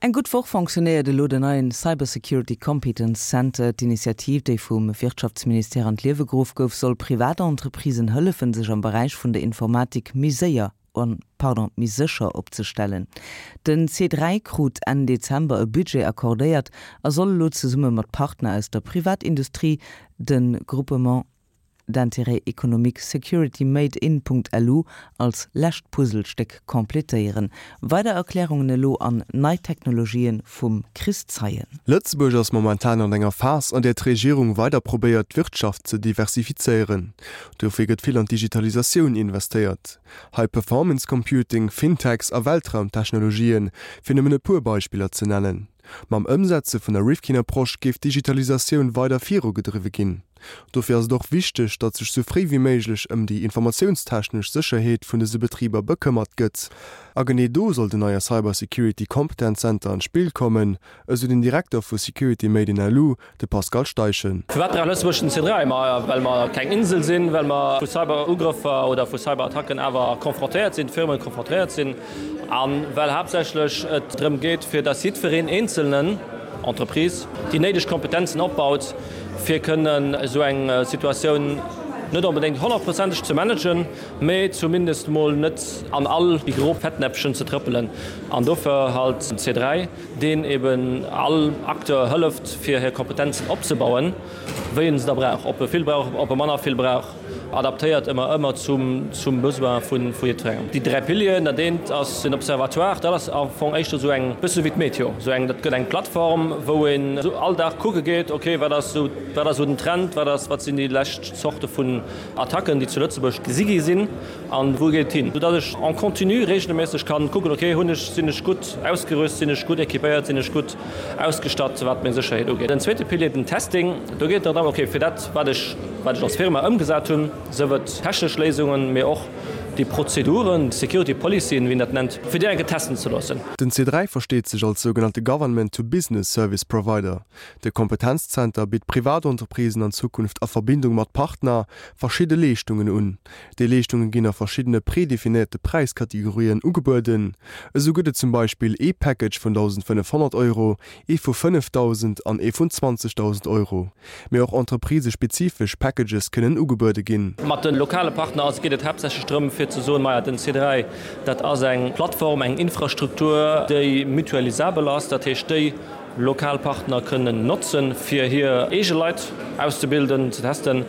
Eng gutt Woch fonctionnéiert elo den neien Cybersecurity Competence Center. D'Initiativ, déi vum Wirtschaftsministère an d'Liewe geruff gouf, soll Privatentreprisen hëllefen, sech am Beräich vun der Informatik méi séier, pardon, méi sécher opzestellen. Den C3 krut Enn Dezember e Budget accordéiert a soll elo zesumme mat Partner aus der Privatindustrie de Groupement d'intérêt économique Security Made in. LU als lescht Puzzlestéck completéieren. Weider Erklärungen elo an nei Technologien vum Chris Zeien. Lëtzebuerg ass momentan an enger Phas, an där d'Regierung weider probéiert, d'Wirtschaft ze diversifizéieren. Dofir gëtt vill an d'Digitalisatioun investéiert. High Performance Computing, Fintechs a Weltraumtechnologien, fir nëmmen e puer Beispiller ze nennen. Mam Ëmsetze vun der Rifkin-Approche géif d'Digitalisatioun weider virugedriwwe ginn. Dofir ass et och wichteg, datt sech sou fréi wéi méiglech ëm déi informatiounstechnesch Sécherheet vun dëse Betriber bekëmmert gëtt. A genee do soll den neie Cyber Security Competence Center an d'Spill kommen, esou den Direkter vu Security Made in LU, de Pascal Steichen. Firwat brauch Lëtzebuerg den C3? Ma well mer keng Insel sinn, well mer vu Cyber-Ugrëffer oder vu Cyberattacken awer confrontéiert sinn, d'Firmen confrontéiert sinn, a well haaptsächlech et drëm geet, fir datt jiddwereen Eenzelnen, Entreprise, déi néideg Kompetenzen opbaut, fir kënnen esou eng Situatioun net onbedéngt honnertprozenteg ze managen, mä zumindest mol net an all déi gro Fettnäpfchen ze trëppelen. An dofir halt den C3. deen eben all Acteur hëlleft, fir hir Kompetenzen opzebauen, wéi en se da brauch, ob e vill brauch, ob e manner vill brauch, adaptéiert ëmmer, ëmmer zum, zum Besoin vu jiddwerengem. Déi 3 Pilieren, dat eent ass den Observatoire, dat ass am Fong éischter esou eng, bësse wéi d'Meteo, esou eng, dat gëtt eng Plattform, wou een esou all Dag kucke geet, okay, wat ass esou, wat ass esou den Trend, wat ass, wat sinn déi lescht Zorte vun Attacken, déi zu Lëtzebuerg gesi gi sinn. An wou geet et hin? Soudatt ech en continu regelméisseg kann kucken, ok, hunn ech, sinn ech gutt ausgerüst, sinn ech gutt équipéiert, sinn ech gutt ausgestatt, wat meng Sécherheet ugeet. Den zweete Pilier, den Testing, do geet et dann drëm, ok, fir dat, wat ech, wat ech als Firma ëmgesat hunn, sief et technesch Léisungen, mee och déi Prozeduren, Security Policyen, wéi een dat nennt, fir déi eng Kéier testen ze loossen. Den C3 versteet sech als sougenannte Government-to-Business Service Provider. De Kompetenzzenter bitt Privatentreprisen an Zukunft a Verbindung mat Partner verschidde Leeschtungen un. Déi Leeschtunge ginn a verschiddene predefinéierte Präiskategorien ugebueden. Esou gëtt et zum Beispill ee Package vun 1.500 Euro, ee vu 5.000 an ee vun 20.000 Euro. Mee och entreprisespezifesch Packages kënnen ugebuede ginn. Mat de lokale Partner ass geet et haaptsächlech drëm, fir ze soen, Maja, den C3, dat ass eng Plattform, eng Infrastruktur, déi mutualisabel ass, dat heescht, déi lokal Partner kënnen notzen, fir hir eege Leit auszebilden, ze testen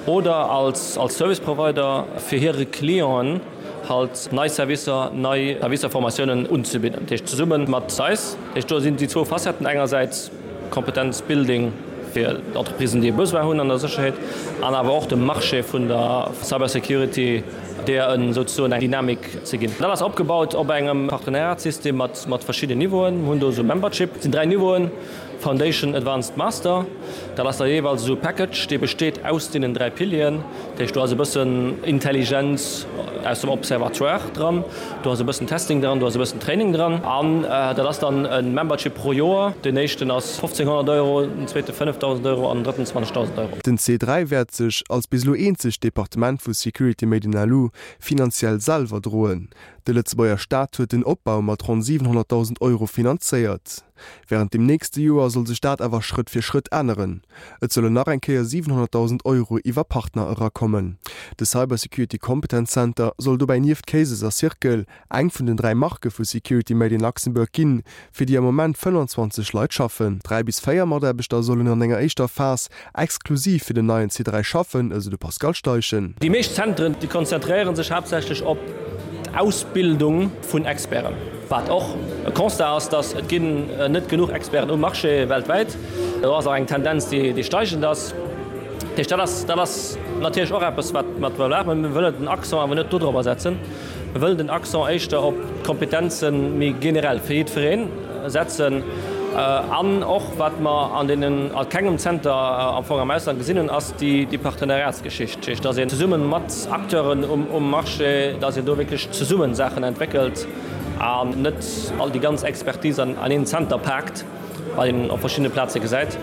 oder als als Service Provider fir hire Clienten halt nei Servicer, nei Servicer, Formatiounen unzebidden. Dat heescht zesumme mat eis. Dat heescht do sinn déi zwou Facetten, engersäits Kompetenz Building fir d'Entreprisen, déi e Besoin hunn an der Sécherheet, an awer och dem Marché vun der Cybersecurity, deer en souzesoen eng Dynamik ze ginn. Dat ass opgebaut op engem Partenariatssystem mat mat verschidden Niveauen. Mir hunn do esou Membership, et sinn 3 Niveauen, Foundation, Advanced, Master. Dat ass da jeeweils esou e Package, dee besteet aus deenen 3 Pilieren. Dat heescht, do ass e bëssen Intelligenz aus dem Observatoire dran, do ass e bëssen Testing dran, do ass e bëssen Training dran. An dat ass dann e Membership pro Joer. Deen éischten ass 1.500 Euro, den zweete 5.000 Euro an den drëtten 20.000 Euro. Den C3 wäert sech, als bis elo eenzegt Departement vu Security Made in LU, finanziell selwer droen. De Lëtzebuerger Staat huet den Opbau mat ronn 700.000 Euro finanzéiert. Wärend dem nächste Joer soll sech dat awer Schrëtt fir Schrëtt änneren. Et sollen nach eng Kéier 700.000 Euro iwwer Partner erakommen. De Cybersecurity Competence Center soll dobäi nieft Cases a Circle eng vun den 3 Marke vu Security Made in Luxembourg ginn, fir déi am Moment 25 Leit schaffen. 3 bis 4 Mataarbechter sollen an enger éischter Phas exklusiv fir den neien C3 schaffen, esou de Pascal Steichen. Déi meescht Zentren, déi konzentréiere sech haaptsächlech op d'Ausbildung vun Experten. Wat och e Constat ass, datt et ginn net genuch Experten um Marché weltwäit. Do ass och eng Tendenz, déi steigend ass. Dat heescht, dat ass, dat ass natierlech och eppes, wat mer maachen. Mä mir wëllen den Accent awer net dodrobber setzen. Mir wëllen den Accent éischter op d'Kompetenze méi generell fir jiddweree setzen. An och, wat mer an deenen, a kengem Zenter am Fong am Ausland gesinn hunn, ass déi Partenariatsgeschicht. Dat heescht, dass een zesumme mat Acteuren um Marché, dass een do wierklech zesumme Saachen entwéckelt an net all déi ganz Expertise an een Zenter paakt, wat een op verschiddene Plaze gesäit.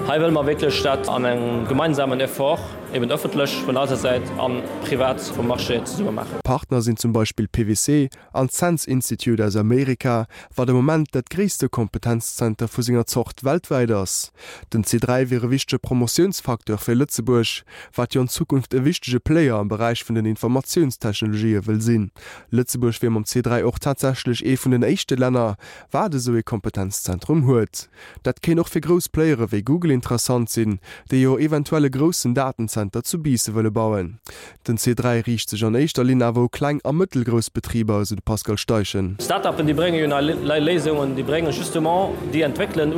Hei wëlle mer wierklech dat an engem gemeinsamen Effort. eben ëffentlech vun eiser Säit a privat vum Marché zesumme maachen. Partner sinn zum Beispill PwC an d'SANS Institute aus Amerika, wat am Moment dat gréisste Kompetenzzenter vu senger Zort weltwäit ass. Den C3 wier e wichtege Promotiounsfacteur fir Lëtzebuerg, wat jo an Zukunft e wichtege Player am Beräich vun den Informatiounstechnologië wëll sinn. Lëtzebuerg wier mam C3 och tatsächlech ee vun den éischte Länner, wat esou ee Kompetenzzentrum huet. Dat kéint och fir grouss Playere wéi Google interessant sinn, déi jo eventuell e groussen Datenzenter zu Biisse wëlle bauen. Den C3 riicht sech an éischter Linn awer u kleng a mëttelgrouss Betriber, esou de Pascal Steichen. Start-upen, déi brénge jo nei Léisungen, déi brénge justement, déi entwéckelen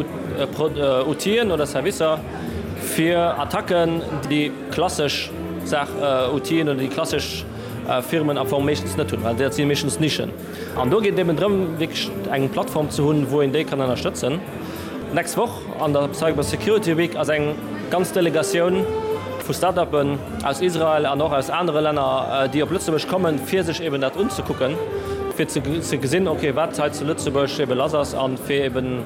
Outile oder Servicer fir Attacken, déi klassesch Saach Outilen oder déi klassesch Firmen am Fong meeschtens net hunn, well dat si meeschtens Nischen. An do geet et eben drëm, wierklech eng Plattform ze hunn, wou een déi kann ënnerstëtzen. D'nächst Woch an der Cyber Security Week ass eng ganz Delegatioun vu Start-uppen aus Israel an och aus anere Länner, déi op Lëtzebuerg kommen, fir sech eben dat unzekucken, fir ze gesinn, okay, wat hei zu Lëtzebuerg ebe lass ass a fir eben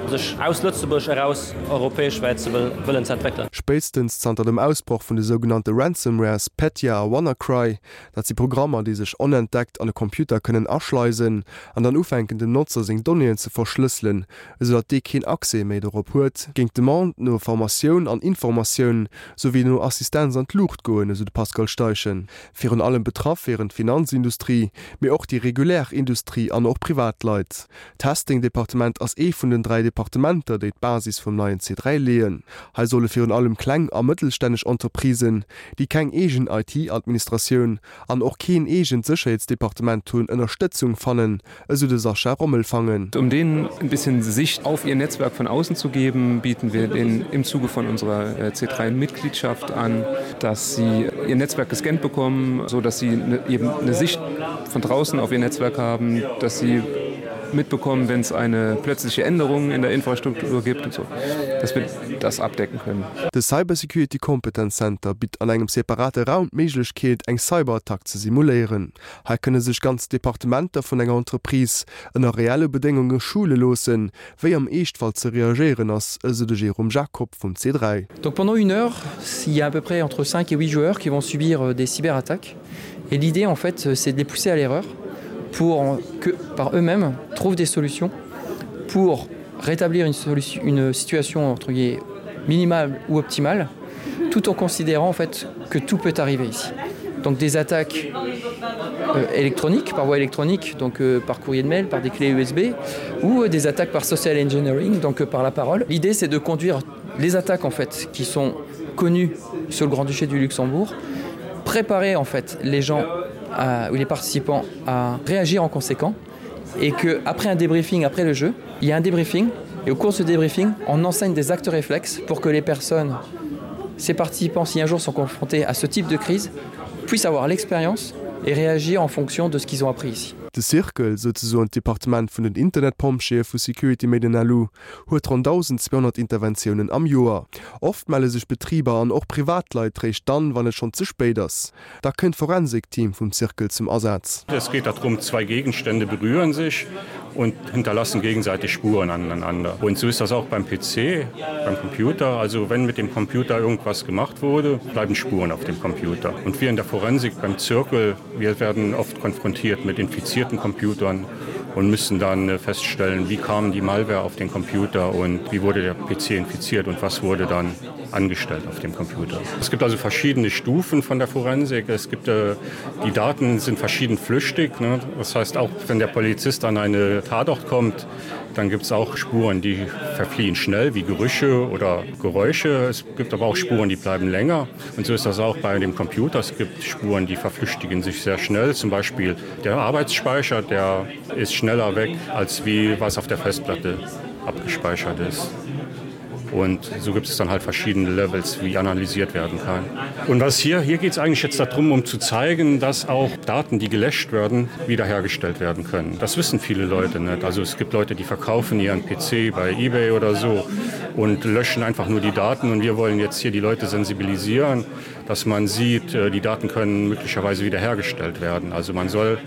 sech aus Lëtzebuerg eraus europäeschwäit ze wëllen ze entwéckelen. Spéitstens zanter dem Ausbroch vun de sougenannte Ransomwares Petya a WannaCry, Dat si Programmer, déi sech onentdeckt an e Computer kënnen aschleisen an dann ufänken dem Notzer seng Donnéeën ze verschlësselen, esou datt dee keen Accès méi dorop huet, géing d'Demande no Formatioun an Informatioun souwéi no Assistenz an d'Luucht goen, esou de Pascal Steichen. Virun allem betraff wieren d'Finanzindustrie, mee och déi regulär Industrie an och Privatleit. D'Testing-Departement ass ee vun den 3 Departementer, déi d'Basis vum neien C3 leeën. Hei solle virun allem kleng a mëttelstänneg Entreprisen, déi keng eegen IT-Administratioun an och keen eegent Sécherheetsdepartement hunn, Ënnerstëtzung fannen, esou de Sascha Rommelfangen. Um denen ein bisschen Sicht auf ihr Netzwerk von außen zu geben, bieten wir denen im Zuge von unserer C3-Mitgliedschaft an, dass sie ihr Netzwerk gescannt bekommen, so dass sie eben eine Sicht von draußen auf ihr Netzwerk haben, dass sie mitbekommen, wenn es eine plötzliche Änderung in der Infrastruktur gibt und so, dass wir das abdecken können. De Cybersecurity Competence Center bitt an engem separate Raum d'Méiglechkeet, eng Cyberattack ze simuléieren. Hei kënne sech ganz Departementer vun enger Entreprise ënner reelle Bedéngunge schule loossen, wéi am Eeschtfall ze reagéieren ass, esou de Jérôme Jacob vum C3. Donc pendant une heure, il y a à peu près entre 5 et 8 joueurs qui vont subir des cyberattaques et l'idée en fait c'est de les pousser à l'erreur pour que par eux-mêmes trouvent des solutions pour rétablir une solution une situation entre guillemets minimale ou optimale tout en considérant en fait que tout peut arriver ici. Donc des attaques euh, électroniques par voie électronique donc euh, par courrier de mail par des clés USB ou euh, des attaques par social engineering donc euh, par la parole. L'idée c'est de conduire les attaques en fait qui sont connues sur le grand-duché du Luxembourg, préparer en fait les gens à, ou les participants à réagir en conséquent et que après un débriefing après le jeu, il y a un débriefing et au cours de ce débriefing, on enseigne des actes réflexes pour que les personnes, ces participants si un jour sont confrontés à ce type de crise, puissent avoir l'expérience et réagir en fonction de ce qu'ils ont appris ici. De Circle, souzesoen d'Departement vun den Internetpompjeeë vu Security Made in LU, huet ronn 1.200 Interventiounen am Joer. Oft melle sech Betriber an och Privatleit réischt dann, wann et schonn ze spéit ass. Da kënnt d'Forensikteam vum Circle zum Asaz. Es geht darum, zwei Gegenstände berühren sich und hinterlassen gegenseitig Spuren aneinander. Und so ist das auch beim PC, beim Computer. Also wenn mit dem Computer irgendwas gemacht wurde, bleiben Spuren auf dem Computer. Und wir in der Forensik beim Zirkel, wir werden oft konfrontiert mit infizierten Computern und müssen dann äh, feststellen, wie kam die Malware auf den Computer und wie wurde der PC infiziert und was wurde dann angestellt auf dem Computer. Es gibt also verschiedene Stufen von der Forensik. Es gibt äh, die Daten sind verschieden flüchtig. Ne? Das heißt auch wenn der Polizist an eine Tatort kommt, dann gibt es auch Spuren, die verfliehen schnell wie Gerüche oder Geräusche. Es gibt aber auch Spuren, die bleiben länger. Und so ist das auch bei dem Computer. Es gibt Spuren, die verflüchtigen sich sehr schnell. Zum Beispiel der Arbeitsspeicher, der ist schneller weg, als wie was auf der Festplatte abgespeichert ist. Und so gibt es dann halt verschiedene Levels, wie analysiert werden kann. Und was hier hier geht es eigentlich jetzt darum, um zu zeigen, dass auch Daten, die gelöscht werden, wiederhergestellt werden können. Das wissen viele Leute nicht. Also es gibt Leute, die verkaufen ihren PC bei eBay oder so und löschen einfach nur die Daten. Und wir wollen jetzt hier die Leute sensibilisieren, dass man sieht, äh, die Daten können möglicherweise wiederhergestellt werden. Also man soll.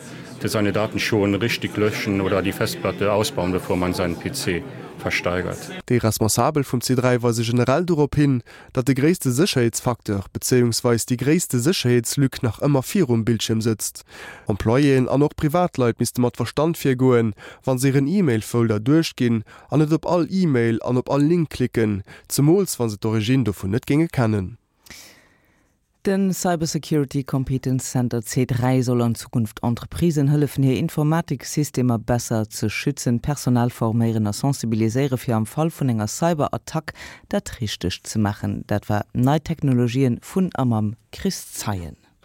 seine Daten schon richtig löschen oder die Festplatte ausbauen, bevor man seinen PC versteigert. Déi Responsabel vum C3 weise generell dorop hin, datt de gréisste Sécherheetsfacteur, bezéiungsweis déi gréisste Sécherheetslück nach ëmmer virum Bildschierm sëtzt. Employéen an och Privatleit misste mat Verstand virgoen, wa se hiren E-Mail-Folder duerchginn an net op all E-Mail an op all Link klicken, zemools wa se d'Origine dovun net géinge kennen. Den Cybersecurity Competence Center C3 soll an Zukunft Entreprisen hëllefen hir Informatiksystemer besser ze schützen, Personal forméieren a sensibiliséiere fir am Fall vun enger Cyberattack dat Richtegt ze maachen. Dat war Nei Technologien vun a mam Chris Zeien.